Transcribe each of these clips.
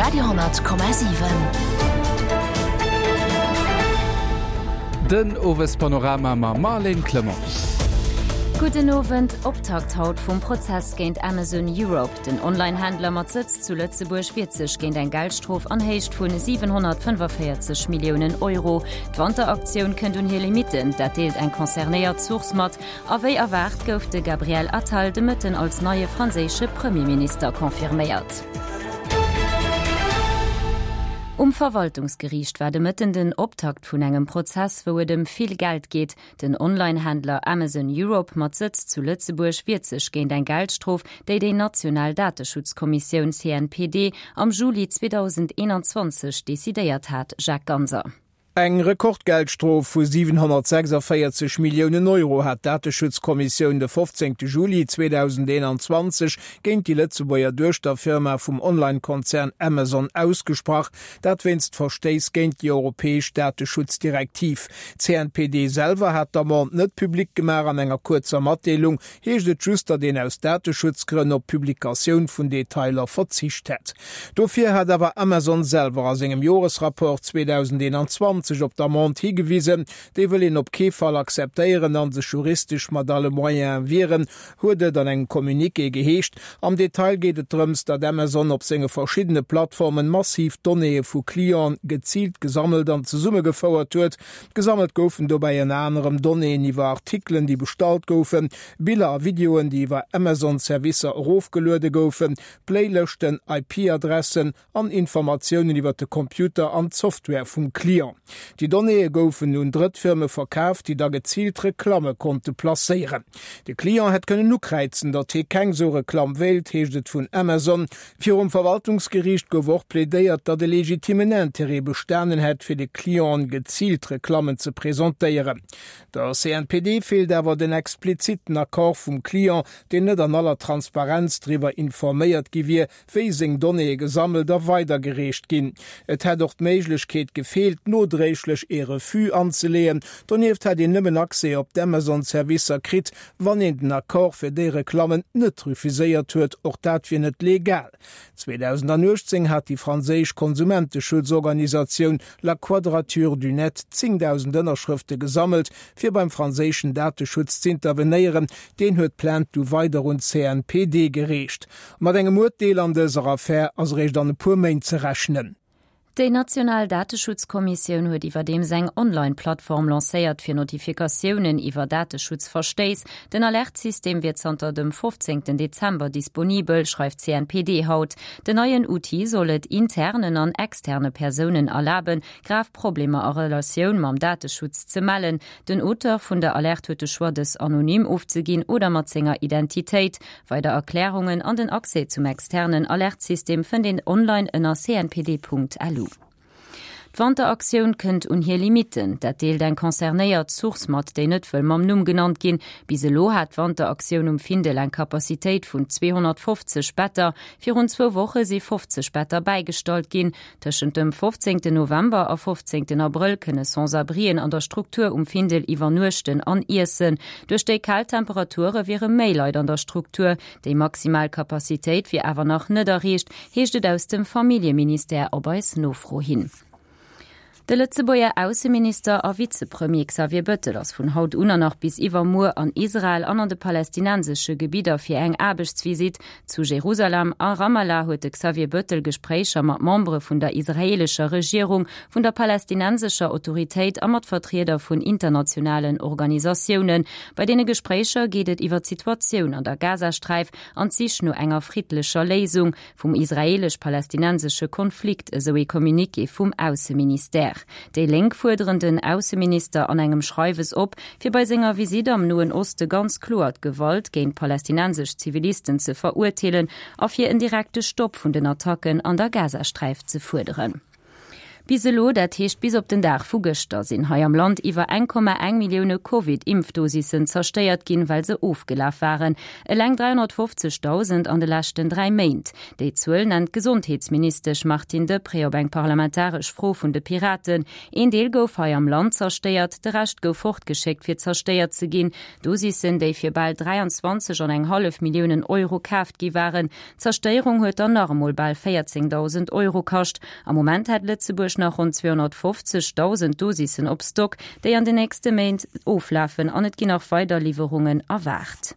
Radio,7. Den Owespanorama mam Marlène Clement. Gudden Owend. Optakt haut vum Prozess géint Amazon Europe. Den Online-Händler mat Sëtz zu Lëtzebuerg wiert sech géint eng Geldstrof an Héicht vun 745 Milliounen Euro. D'Wanteraktioun kënnt un hir Limitten, dat deelt eng concernéiert Source mat. A wéi erwaart gouf de Gabriel Attal de Mëtten als neie franséische Premierminister confirméiert. Um Verwaltungsgeriicht war de Mëtten den Optakt vun engem Prozess, wou et ëm vill Geld geet. Den Online-Händler Amazon Europe mat Sëtz zu Lëtzebuerg wiert sech géint eng Geldstrof, déi déi national Dateschutzkommissioun CNPD am Juli 2021 decidéiert hat. Jacques Ganser. Eng Rekordgeldstrof vu 746 Milliounen Euro hat d'Dateschutzkommissioun de 15 Juli 2021 géint déi Lëtzebuerger Duechterfirma vum Online-Konzern Amazon ausgesprach, dat wéinst Verstéiss géint déi europäesch Dateschutzdirektiv. D'CNPD selwer hat d'Amende net public gemaach. An enger kuerzer Matdeelung heescht et just, datt een aus Dateschutzgrënn op d'Publikatioun vun Detailer verzicht hätt. Dofir hat awer Amazon selwer a sengem Joresrapport 2021 op d'Amende higewisen. Déi wëll een op kee Fall akzeptéieren a sech juristesch mat alle Moyene wieren, huet et an engem Communiqué geheescht. Am Detail geet et drëms, datt Amazon op senge verschiddene Plattformen massiv Donnéeë vu Clienten geziilt gesammelt an zesummegefouert huet. Gesammelt goufen dobäi ënner anerem Donnéeën iwwer Artikelen, déi bestallt goufen, Biller a Videoen, déi iwwer Amazon-Servicer erofgeluede goufen, Playlëschten, IP-Adressen an Informatiounen iwwer de Computer an d'Software vum Client. Déi Donnéeë goufen un Drëttfirme verkaaft, déi da geziilt Reklamme konnte placéieren. De Client hätt kënnen ukräizen, datt hie keng sou Reklamm wéilt, heescht et vun Amazon. Virum Verwaltungsgeriicht gouf och plädéiert, datt e legitimen Interêt bestanen hätt, fir de Clienten geziilt Reklammen ze presentéieren. Der CNPD feelt awer den explizitten Accord vum Client, deen net an aller Transparenz driwwer informéiert gi wier, wéi seng Donnéeë gesammelt a weidergereecht ginn. Et hätt och d'Méiglechkeet gefeelt, nodréiglech ee Refus anzeleeën. Donieft hätt een nëmmen Accès op d'Amazon-Servicer kritt, Wann een den Accord fir déi Reklammen net refuséiert huet, och dat wier net legal. 2018 hat déi franséisch Konsumenteschutzorganisatioun La Quadrature du Net 10.000 Ënnerschrëfte gesammelt, fir beim franséischen Dateschutz z'intervenéieren. Deen huet d'Plainte du weider un d'CNPD gereecht. Mat engem Urteel an dëser Affär ass eréischt an e puer Méint ze rechnen. Déi national Dateschutzkommissioun huet iwwerdeems eng Online-Plattform lancéiert fir Notifikatiounen iwwer Dateschutzverstéiss. Den Alertsystem wier zanter dem 15 Dezember disponibel, schreift d'CNPD haut. Den neien Outil soll et internen an externe Persounen erlaben, grav Problemer a Relatioun mam Dateschutz ze mellen. Den Auteur vun der Alerte huet de Choix, dës anonym ofzeginn oder mat senger Identitéit. Weider Erklärungen an den Accès zum externen Alertsystem fënnt een online ënner cnpd.lu. D'Wanteraktioun kënnt un hir Limitten. Dat deelt eng concernéiert Source mat, déi net wëll mam Numm genannt ginn. Bis elo hat d'Wanteraktioun um Findel eng Capacitéit vun 250 Better. Virun zwou Woche si 50 Better bäigestallt ginn. Tëschent dem 15 November a 15 Abrëll kënne Sans-abrien an der Struktur um Findel iwwernuechten an iessen. Duerch déi kal Temperature wiere méi Leit an der Struktur. Déi maximal Capacitéit wier awer nach net erreecht, heescht et aus dem Familljeministère op eis Nofro hin. De Lëtzebuerger Ausseminister a Vizepremier Xavier Bettel ass vun haut un an nach bis iwwermuer an Israel an an de palästinensesche Gebidder fir eng Aarbechtsvisitt. Zu Jerusalem a Ramallah huet de Xavier Bettel Gespréicher mat Membere vun der israeelescher Regierung, vun der palästinensescher Autoritéit a mat Vertrieder vun internationalen Organisatiounen. Bei deene Gespréicher geet et iwwer d'Situatioun an der Gazasträif an d'Sich no enger friddlecher Léisung. Vum israeelesch-palästinensesche Konflikt, esou ee Communiqué vum Ausseministère. Déi Lénk fuerderen den Ausseminister an engem Schreiwes op, fir bei senger Visitt am Noen Oste ganz kloer d'Gewalt géint palästinensesch Zivilisten ze verurteelen a fir en direkte Stopp vun den Attacken an der Gazasträif ze fuerderen. Bis elo, dat heescht bis op den Dag vu gëschter, sinn hei am Land iwwer 1,1 Millioune Covid-Impfdosissen zerstéiert ginn, well se ofgelaf waren. Eleng 350.000 an de leschten 3 Méint. Déi Zuel nennt d'Gesondheetsministesch Martine Deprez op eng parlamentaresch Fro vun de Piraten. Een Deel gouf hei am Land zerstéiert, de Rescht gouf fortgeschéckt fir zerstéiert ze ginn. Dosissen, déi fir bal 23 an eng hallef Milliounen Euro kaaft gi waren. D'Zerstéierung huet dann nach emol bal 14.000 Euro kascht. Am Moment hätt Lëtzebuerg nach ronn 250.000 Dosissen op Stock, déi an den nächste Méint oflafen an et ginn nach weider Liwwerungen erwaart.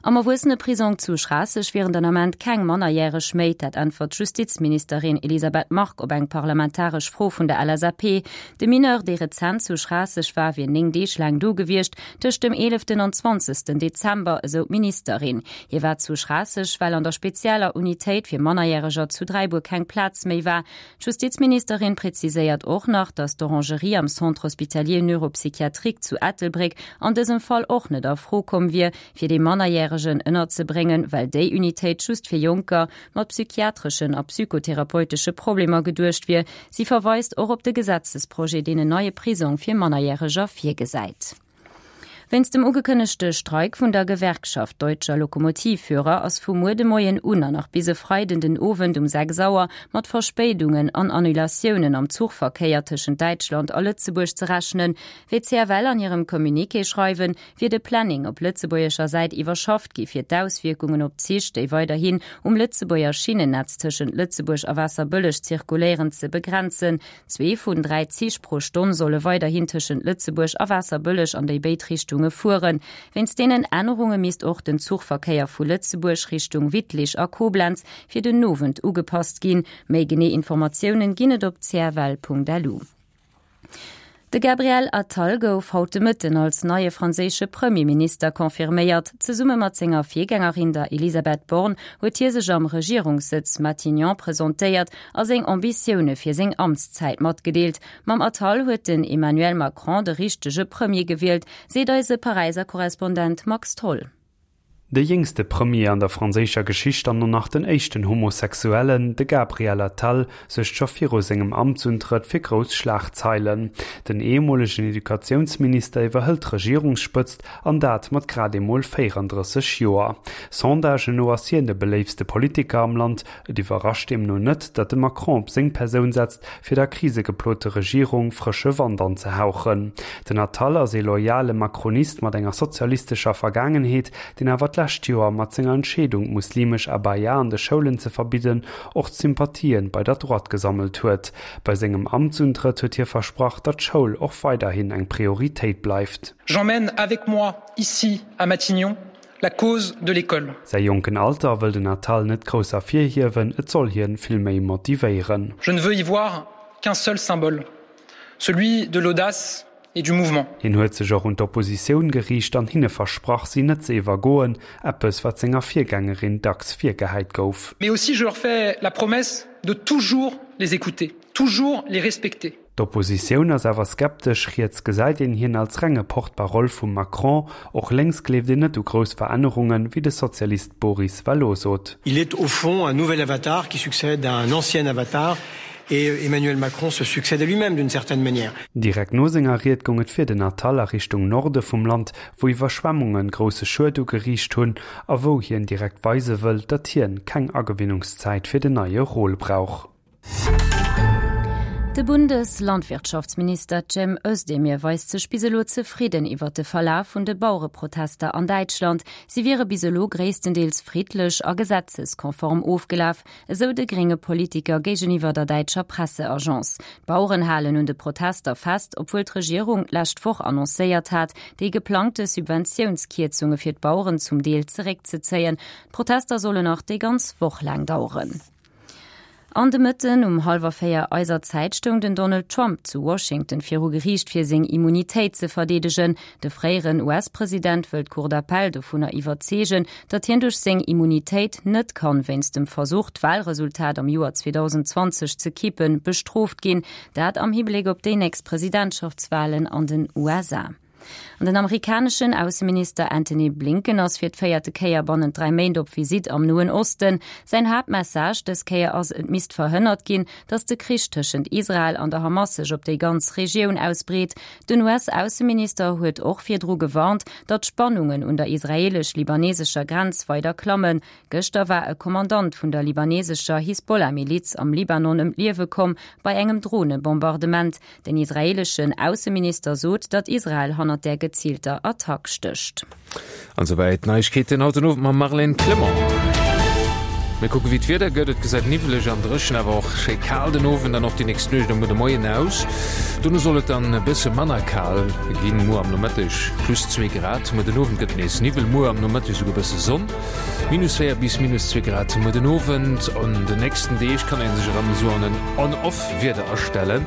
Am Erwuesseneprisong zu Schraasseg wieren den Ament keng Mannerjäreg méi. Dat äntwert d'Justizministerin Elisabeth Margue op eng parlamentaresch Fro vun der LSAP. De Mineur, dee rezent zu Schraasseg war, wier 9 Deeg laang do gewiescht, tëscht dem eeleften an zwanzegsten Dezember, esou d'Ministerin. Hie war zu Schraasseg, well an der spezieller Unitéit fir Mannerjäreger zu Dräibuer keng Plaz méi war. D'Justizministerin präziséiert och nach, datt d'Orangerie am Centre hospitalier neuropsychiatrique zu Ettelbréck an dësem Fall och net a Fro komm wier, fir dee Mannerjäregen ënnerzebréngen, well déi Unitéit just fir Jonker mat psychiatreschen a psychotherapeutesche Problemer geduecht wier. Si verweist och op de Gesetzesprojet, deen en neie Prisong fir Mannerjäreger virgesäit. Wéinst dem ugekënnegte Streik vun der Gewerkschaft Deutscher Lokomotivführer ass vu muer de Moien un an nach bis e Freiden den Owend um 6 Auer mat Verspéidungen an Annulatiounen am Zuchverkéier tëschent Däitschland a Lëtzebuerg ze rechnen. Wéi d'CFL an hirem Communiqué schreiwen, wier de Planning op lëtzebuergescher Säit iwwerschafft gi fir d'Auswierkungen op d'Zich, déi weiderhin um Lëtzebuerger Schinnennetz tëschent Lëtzebuerg a Waasserbëlleg zirkuléieren, ze begrenzen. Zwee vun 3 Zich pro Stonn solle weiderhin tëschent Lëtzebuerg a Waasserbëlleg an déi béid Richtunge fueren. Wéinst deenen Ännerunge misst och den Zuchverkéier vu Lëtzebuerg Richtung Wittlich a Koblenz fir den Owend ugepasst ginn. Méi genee Informatiounen ginn et op cfl.lu. De Gabriel Attal gouf haut de Mëtten als neie franséische Premierminister confirméiert. Zesumme mat senger Virgängerin, der Elisabeth Borne, huet hie sech am Regierungssëtz Matignon presentéiert a seng Ambitioune fir seng Amtszäit matgedeelt. Mam Attal huet den Emmanuel Macron de richtege Premier gewielt, seet eise Paräiser Korrespondent Max Tholl. De jéngste Premier an der franséischer Geschicht an och nach den éischten Homosexuellen, de Gabriel Attal, suergt scho viru sengem Amtsuntrëtt fir grouss Schlagzeilen. Den ehemolegen Educatiounsminister iwwerhëlt d'Regierungsspëtzt, an dat mat grad emol 34 Joer. Sondagen no ass hien de beléiftste Politiker am Land, Et iwwerrascht deemno net, datt de Macron op seng Persoun setzt, fir der krisegeplote Regierung frësche Wand anzehauchen. Den Attal ass ee loyale Macronist mat enger sozialistescher Vergaangenheet, deen awer d'lescht Joer mat senger Entscheedung, d'muslimesch Abaya an de Schoulen ze verbidden, och Sympathien bei der Droite gesammelt huet. Bei sengem Amtsuntrëtt huet hie versprach, datt d'Schoul och weiderhin eng Prioritéit bleift. J'emmène avec moi ici à Matignon la cause de l'école. Säi jonken Alter wëll den Attal net grouss ervirhiewen, et soll hien vill méi motivéieren. Je ne veux y voir qu'un seul symbole, celui de l'audace et du mouvement. Hien huet sech och un d'Oppositioun geriicht an hinne versprach, si net ze iwwergoen, eppes wat senger Virgängerin dacks virgehäit gouf. Mais aussi je leur fais la promesse de toujours les écouter, toujours les respecter. D'Oppositioun ass awer skeptesch, riets gesäit een hien als renge Porte-parole vum Macron, och lénks gleeft een net u grouss Verännerungen, wéi de Sozialist Boris Vallaud sot. Il est au fond un nouvel avatar qui succède à un ancien avatar et Emmanuel Macron se succède à lui-même d'une certaine manière. Direkt no senger Ried goung et fir den Attal a Richtung Norde vum Land, wou Iwwerschwemmunge grousse Schued ugeriicht hunn a wou hien direkt weise wëll, datt hien keng Agewinnungszäit fir den neie Rôle brauch. De Bundeslandwirtschaftsminister Cem Özdemir weist sech bis elo zefridden iwwer de Verlaf vun de Bauereprotester an Däitschland. Si wiere bis elo gréisstendeels friddlech a gesetzeskonform ofgelaf, esou de grénge Politiker géigeniwwer der däitscher Presseagence. D'Baueren halen un de Protester fest, obwuel d'Regierung d'lescht Woch annoncéiert hat, déi geplangte Subventiounskierzunge fir d'Baueren zum Deel zeréckzezéien. D'Protester sollen nach déi ganz Woch laang daueren. An de Mëtten um hallwer 4 eiser Zäit stoung den Donald Trump zu Washington viru Geriicht fir seng Immunitéit ze verdeedegen. De fréieren US-President wëll d'Cour d'appel dovunner iwwerzeegen, datt hien duerch seng Immunitéit net kann wéinst dem Versuch d'Walresultat am Joer 2020 ze kippen, bestrooft ginn. Dat am Hibléck op déi nächst Presidentschaftswalen an den USA. An den amerikaneschen Ausseminister Antony Blinken ass fir d'véierte Kéier bannent 3 Méint op Visitt am Noen Osten. Säin Haaptmessage dës Kéier ass, et misst verhënnert ginn, datt de Krich tëschent Israel an der Hamas sech op déi ganz Regioun ausbreet. Den US-Ausseminister huet och virdru gewarnt, datt d'Spannungen un der israeelesch-libanesescher Grenz weider klammen. Gëschter war e Kommandant vun der libanesescher Hisbollah-Miliz am Libanon ëm d'Liewe komm bei engem Dronebombardement. Den israeeleschen Ausseminister sot, datt Israel hannert där geziilter Attack stécht. An souwäit d'Neiegkeeten haut den Owend mam Marlène Clement. Mir kucke wéi d'Wieder gëtt. Et gesäit niwweleg an dréchen, awer och schéi kal den Owend an och déi nächst Nuecht a muer de Moien aus. Dono soll et dann e bësse manner kal ginn, muer am Nomëtteg plus 2 Grad. Muer den Owend gëtt et nees Niwwel, muer am Nomëtteg esouguer e bësse Sonn. Minus 4 bis minus 2 Grad muer den Owend. An den nächsten Deeg kann ee sech erëm esou an en On-Off Wieder astellen.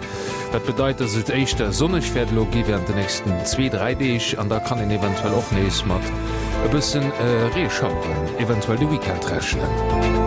Dat bedeit, dass et éischter sonneg wäert elo gi während de nächsten zwee, dräi Deeg an da kann een eventuell och nees mat e bëssen Reeschaueren eventuell de Weekend rechnen.